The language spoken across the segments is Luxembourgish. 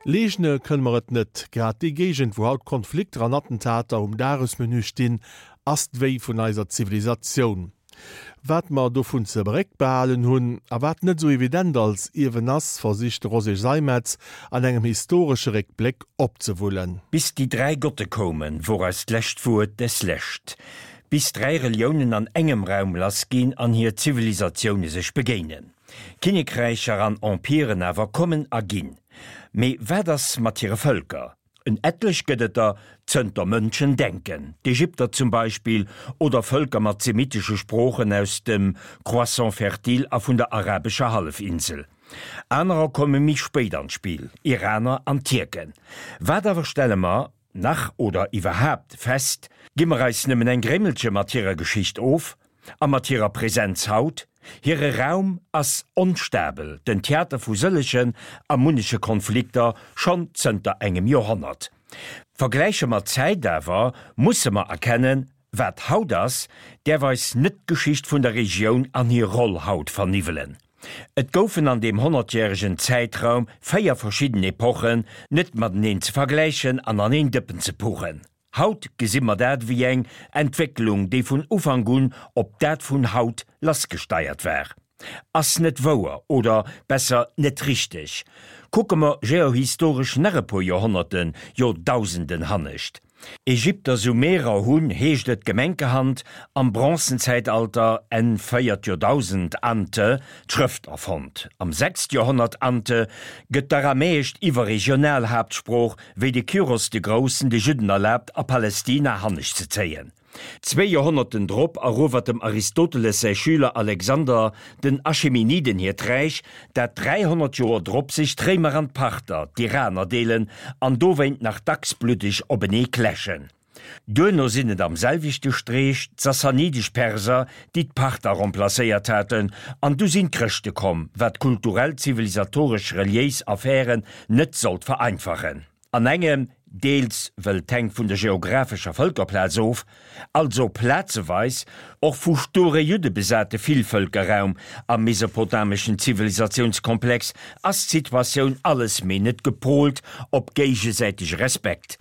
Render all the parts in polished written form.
Leegne kënne mer et net. Grad déi Géigend, wou haut Konflikter an Attentater um Dagesmenü stinn, ass d'Wéi vun eiser Zivilisatioun. Wat mer dovun ze beréckbehalen hunn a wat net esou evident als Ierwen ass, versicht de Roger Seimetz an engem historesche Réckbléck opzewullen. Bis déi 3 Gotte koumen, wor eist lescht Wuert des lescht. Bis 3 Reliounen an engem Raum lass ginn an hir Zivilisatioune sech begéinen. Kinnekräicher an Empiren awer kommen a ginn. Mee wat ass mat hire Vëlker? En etlech gëtt et der zënter Mënschen denken, d'Ägypter zum Beispill, oder Vëlker mat semitesche Sproochen aus dem Croissant fertile a vun der arabescher Hallefinsel. Anerer komme méi spéit an d'Spill, Iraner an Tierken. Wat awer stelle mer, nach oder iwwerhaapt, fest? Gi mer eis nëmmen eng Grémmelche mat hirer Geschicht of? A mat hirer Präsenz haut? Hire Raum ass onstabel, den Theater vu sëllegen a munneche Konflikter schonn zënter engem Joerhonnert. Vergläiche mer d'Zäit awer, musse mer erkennen, wat haut ass, däerf eis net d'Geschicht vun der Regioun an hir Roll haut verniwwelen. Et goufen an deem honnertjäregen Zäitraum 4 verschidden Epochen, net mateneen ze vergläichen an an een Dëppen ze puchen. Haut gesi mer dat ewéi eng Entwécklung, déi vun Ufank un op dat vun haut lassgesteiert war. Ass net wouer, oder besser net richteg. Kucke mer geohistoresch nach e puer Joerhonnerten, jo Dausenden hannescht. Ägypter, Sumerer hunn, heescht et gemenkerhand, am Bronzenzäitalter, Enn véiert Joerdausend ante. D'Schrëft erfonnt. Am sechst Joerhonnert ante. Gëtt d'Aramäescht iwwerregional Haaptsprooch, wéi de Kyros de Groussen de Judden erlaabt a Palestina hannescht ze zéien. Zwéi Joerhonnerten drop eruewert dem Aristoteles säi Schüler Alexander den Achemeniden hiert Räich, dat 300 Joer drop sech d'Réimer an d'Parther, d'Iraner, deelen an dowéint nach dacks bluddeg openee kläschen. Duerno sinn et am selwechte Streech d'sassanidesch Perser, déi d'Parther remplacéiert haten, an du sinn d'Chrëschte komm, wat kulturell, zivilisatoresch, reliéis Affären net sollt vereinfachen. An engem, deels wëll d'hänkt vun der geographescher Vëlkerplaz of, also plazeweis och vu sture Judde besate Villvëlkerraum am mesopotameschen Zivilisatiounskomplex, ass d'Situatioun alles mee net gepolt op géigesäitege Respekt.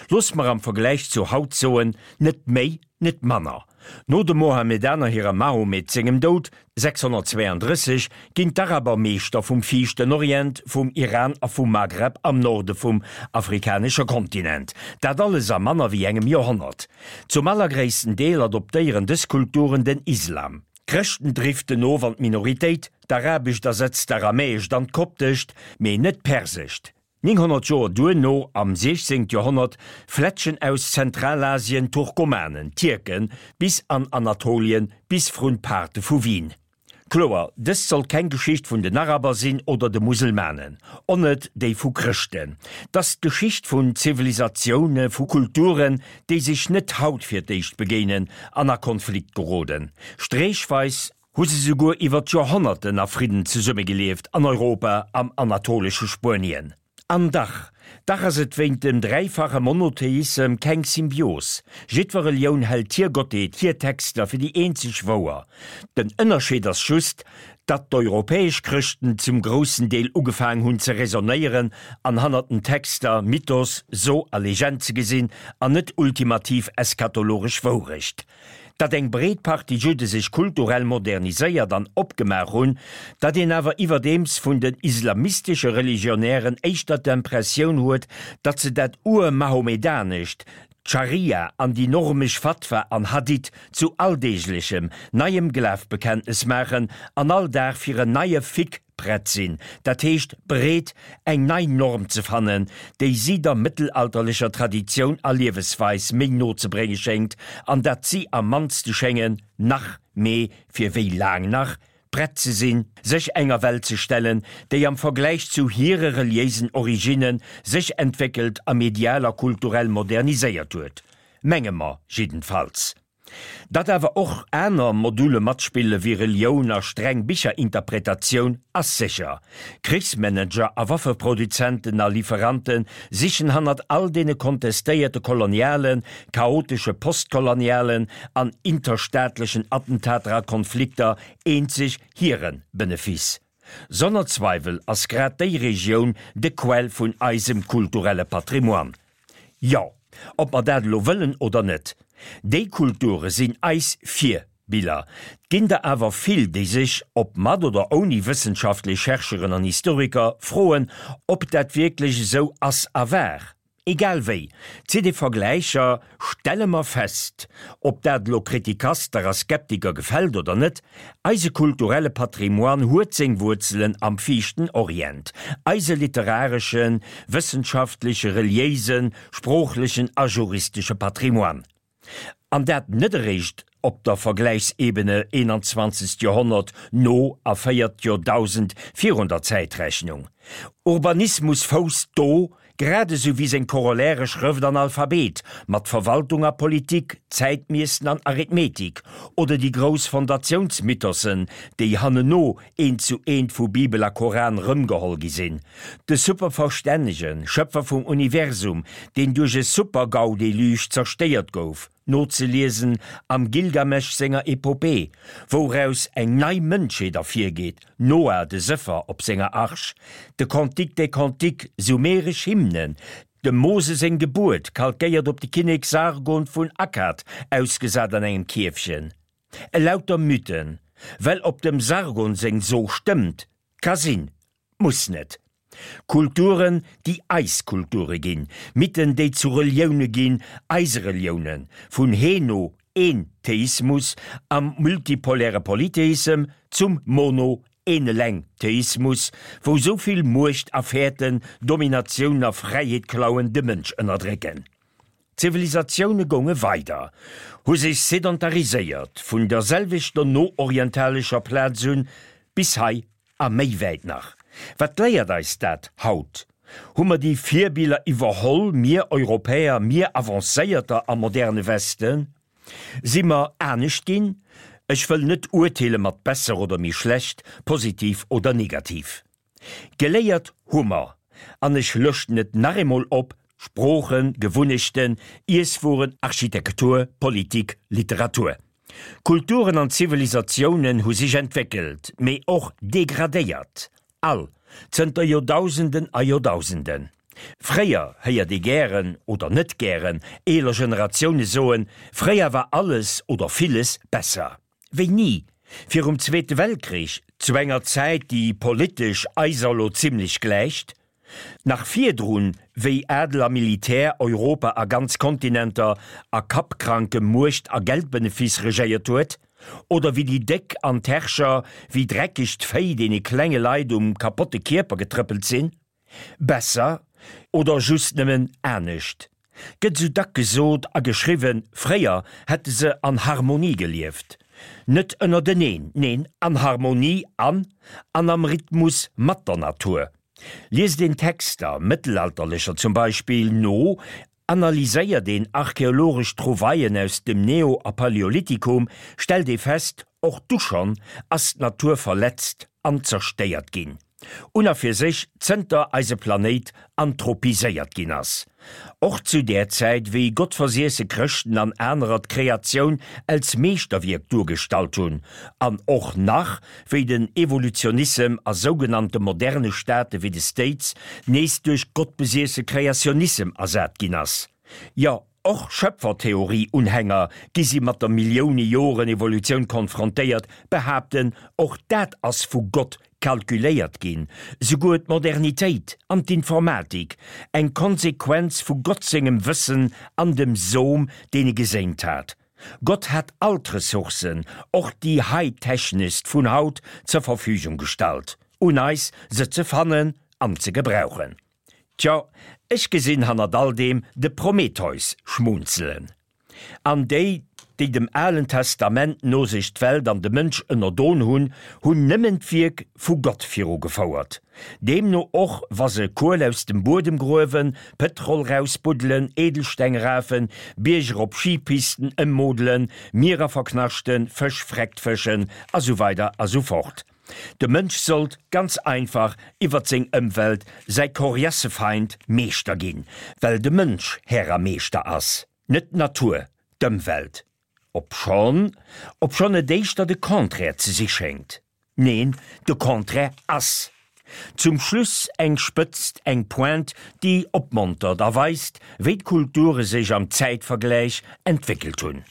Looss mer am Vergläich zu haut soen, net méi, net manner. No de Mohammedaner hirem Mahomet sengem Doud 632 ginn d'Araber Meeschter vum Viischten Orient, vum Iran a vum Maghreb am Norde vum afrikanesche Kontinent. Dat alles a manner wéi engem Joerhonnert. Zum allergréissten Deel adoptéieren dës Kulturen den Islam. D'Chrëschten driften of an d'Minoritéit, d'Arabescht ersetzt d'Aramäescht an d'Koptescht, mee net d'Persescht. 900 Joer duerno, am 16. Joerhonnert, fletschen aus Zentralasien Turkomanen, Tierken, bis an Anatolien, bis vrun d'Paarte vu Wien. Kloer, dëst sollt keng Geschicht vun den Araber sinn oder de Muselmanen, on net déi vu Chrëschten. T'ass d'Geschicht vun Zivilisatioune, vu Kulturen, déi sech net haut fir d'éischt begéinen an a Konflikt geroden. Streechweis Hu se souguer iwwer d'Joerhonnerten a Fridden zesummegelieft an Europa, am anatolesche Spuenien. An dach, dach ass et wéint dem dräifache Monotheissem keng Symbios. Jiddwer Relioun hält hir Gottheet, hir Texter fir déi eenzeg wouer. Den Ënnerscheed ass just, datt d'europäesch Chrëschten zum groussen Deel ugefaang hunn ze raisonnéieren an hannert den Texter Mythos, So a Legend ze gesinn an net ultimativ eschatologesch Wourecht. Datt eng breet Partie Judde sech kulturell moderniséiert an opgemaach hunn, datt een awer iwwerdeems vun den islamistesche Religionären éischter d'Impressioun huet, datt se dat Ur-Mahomedanescht, d'Scharia an déi normesch Fatwa an Hadith zu alldeeglechem, neiem Glafbekenntnes maachen an all Dag fir en neie Fiqh prett sinn, dat heescht bereet, eng nei Norm ze fannen, déi si der mëttelalterlecher Traditioun a Liewesweis méi no ze brénge schéngt, an datt si am mannste schéngen, nach, mee fir wéi laang nach? Prett ze sinn, sech enger Welt ze stellen, déi am Vergläich zu hire reliéisen Originne sech entwéckelt a medial a kulturell moderniséiert huet. Menge mer jiddenfalls. Datt awer och aner Module matspille wéi Relioun a streng Bicherinterpretatioun ass sécher. Krichsmanager a Waffeproduzenten a Lieferante sichen hannert all deene kontestéierte kolonialen, chaotesche postkolonialen an interstaatlechen Attentater a Konflikter eenzeg hire Benefice. Sonner Zweiwel ass grad déi Regioun de Quell vun eisem kulturelle Patrimoine. Jo, ob mer dat elo wëllen oder net, déi Kulture sinn eis Virbiller. 't ginn der awer vill, déi sech, ob mat oder ouni wëssenschaftlech Chercheuren an Historiker, froen, ob dat wierklech esou ass a war. Egal wéi, zitt ee Vergläicher, stelle mer fest, ob dat elo Kritikaster a Skeptiker gefält oder net, eise kulturelle Patrimoine huet seng Wuerzelen am viischten Orient, eise literareschen, wëssenschaftleche, reliéisen, sproochlechen a juristesche Patrimoine. An dat net eréischt op der Vergläichsebene 21. Joerhonnert no a véiert Joerdausend virun der Zäitrechnung. Urbanismus fousst do, grad esou wéi seng Corollaire Schrëft an Alphabet, mat Verwaltung a Politik, Zäitmiessen an Arithmetik, oder déi grouss Fondatiounsmythossen, déi hanneno eent zu eent vu Bibel a Koran rëmgeholl gi sinn. De superverstännegen Schëpfer vum Universum, deen duerch e Super-GAU-Deluge zerstéiert gouf, nozeliesen am Gilgamesch senger Epopee, wouraus eng nei Mënschheet ervirgeet, Noah de Sëffer op senger Arch, de Cantique des Cantiques, sumeresch Hymnen, dem Mose seng Gebuert, kalkéiert op de Kinnek Sargon vun Akkad, ausgesat an engem Kierfchen. Elauter Mythen, well op dem Sargon seng So stëmmt, ka sinn, muss net. Kulturen, déi eis Kulture ginn, Mythen, déi zu Relioune ginn, eise Reliounen, vun Heno, een Theismus am multipoläre Polytheissem zum Mono, een eleng Theismus, wou sou vill Muecht a Fäerten, Dominatioun a Fräiheet klauen, de Mënsch ënnerdrécken. D'Zivilisatioune gounge weider, hu sech sedentariséiert, vun der selwechter no-orientalescher Plaz un bis hei a méi wäit nach. Wat léiert eis dat haut? Hu mer déi Virbiller iwwerholl, mir Europäer, mir Avancéierter am moderne Westen? Si mer anescht ginn? Ech wëll net urteele mat besser oder méi schlecht, positiv oder negativ. Geléiert hu mer, an ech lëschten et nach eemol op, Sproochen, Gewunnechten, Iesswueren, Architektur, Politik, Literatur. Kulturen an Zivilisatiounen hu sech entwéckelt, mee och degradéiert, all, zënter Joerdausenden a Joerdausenden. Fréier héiert ee gären, oder net gären, eeler Generatioune soen, fréier war alles oder villes besser. Wéini? Virum Zweete Weltkrich, zu enger Zäit, déi politesch eiser elo zimlech gläicht? Nach virdrun, wéi Adel a Militär Europa a ganz Kontinenter a kappkrankem Muecht a Geldbenefiss regéiert huet? Oder wéi déi Déck an d'Herrscher wéi dreckegt Véi deene klenge Leit um kapotte Kierper getrëppelt sinn? Besser oder just nëmmen anescht? Gëtt sou dack gesot a geschriwwen, fréier hätte se an Harmonie gelieft. Net ënnerteneen, neen, an Harmonie an an am Rhythmus mat der Natur. Liest een Texter, mëttelalterlecher zum Beispill, no, Analyséiert een archeologesch Trouvaillen aus dem Neo a Paläolithikum, stellt ee fest, och du schonn ass d'Natur verletzt an zerstéiert ginn. Un a fir sech zënter eise Planéit anthropiséiert ginn ass. Och zu där Zäit, wéi gottversiesse Chrëschten an anerer d'Kreatioun als Meeschterwierk duergestallt hunn, an och nach wéi den Evolutionissem a sougenannte moderne Staate wéi de States nees duerch gottbesiesse Kreationissem ersat ginn ass. Jo, och Schöpfertheorie-Unhänger, gi si mat der Millioune Joren Evolutioun konfrontéiert, behaapten, och dat ass vu Gott kalkuléiert ginn, souguer d'Modernitéit an d'Informatik, eng Konsequenz vu Gott sengem Wëssen an dem Som, deen e geséint hat. Gott hat all d'Ressourcen, och déi high-techneschst vun haut, zur Verfügung gestallt. Un eis, se ze fannen an ze gebrauchen. Tjo, ech gesinn hannert all deem de Prometheus schmunzelen. An déi, déi dem Alen Testament no sech d'Welt an de Mënsch ënnerdon hunn, hunn nëmmen d'Wierk vu Gott virugefouert. Deemno och wa se Kuel aus dem Buedem gruewen, Pëtrol rausbuddelen, Edelsteng rafen, Bierger op Skipisten ëmmodelen, Mierer verknaschten, Fësch freckt fëschen a sou weider a sou fort. De Mënsch sollt ganz einfach iwwert seng Ëmwelt, säi Koriassefeind, Meeschter ginn, well de Mënsch Här a Meeschter ass, net d'Natur, d'Ëmwelt. Obschonn, obschonn et éischter de Contraire ze si schéngt. Neen, de Contraire ass. Zum Schluss eng Spëtzt, eng Pointe, déi opmontert a weist, wéi d'Kulture sech am Zäitvergläich entwéckelt hunn.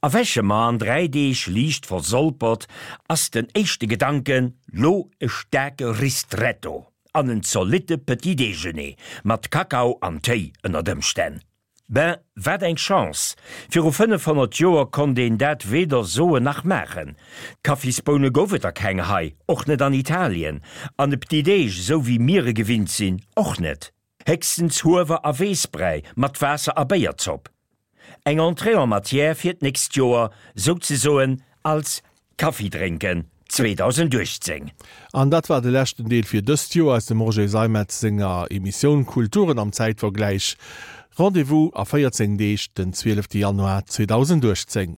Erwäche mer an 3 Deeg liicht versolpert, ass den éischte Gedanken, lo e staarke Ristretto an en zolitte Petit Déjeuner mat Kakao an Téi ënnert Ëmstänn. Ben, wat eng Chance! Viru 500 Joer konnt een dat weder soen nach maachen. Kaffisboune gouf et der keng hei, och net an Italien, an e Petit Déj, esou wéi mir e gewinnt sinn, och net. Héchstens Huewer a Weessbräi mat Waasser a Béierzopp. Eng Entrée en matière fir d'nächst Joer, souzesoen als Kaffidrénken 2018. An dat war de leschten Deel fir dëst Joer aus dem Roger Seimetz senger Emissioun Kulturen am Zäitvergläich. Rendez-vous a 14 Deeg, den 12 Januar 2018.